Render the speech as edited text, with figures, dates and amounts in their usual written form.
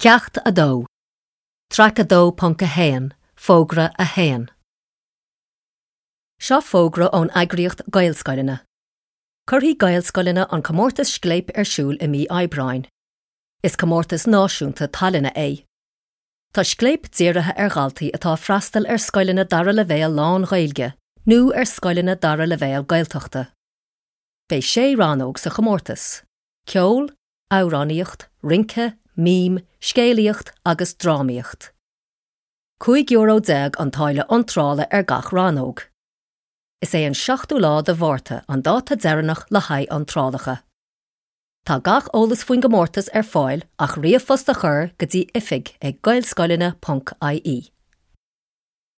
Ceacht 2, Traic 2.1, Fógra 1. Seo fógra ón eagraíocht Gaelscoileanna. Cuirfidh Gaelscoileanna an comórtas Scléip ar siúl i mí Aibreáin. Is comórtas náisiúnta tallainne é. Tá Scléip dírithe ar dhaltaí atá ag freastal ar scoileanna dara leibhéal lán-Ghaeilge nó ar scoileanna dara leibhéal Gaeltachta. Beidh sé rannóg sa chomórtas, ceol, amhránaíocht, rince, mím, scéalaíocht agus drámaíocht. €15 an táille iontrála ar gach rannóg. Is é an seachtú lá de Mhárta an dáta deireanach le haghaidh iontrálacha. Tá gach eolas faoin gcomórtas ar fáil ach ríomhphost a chur go dtí oifig ag gaelscoileanna ponc ie.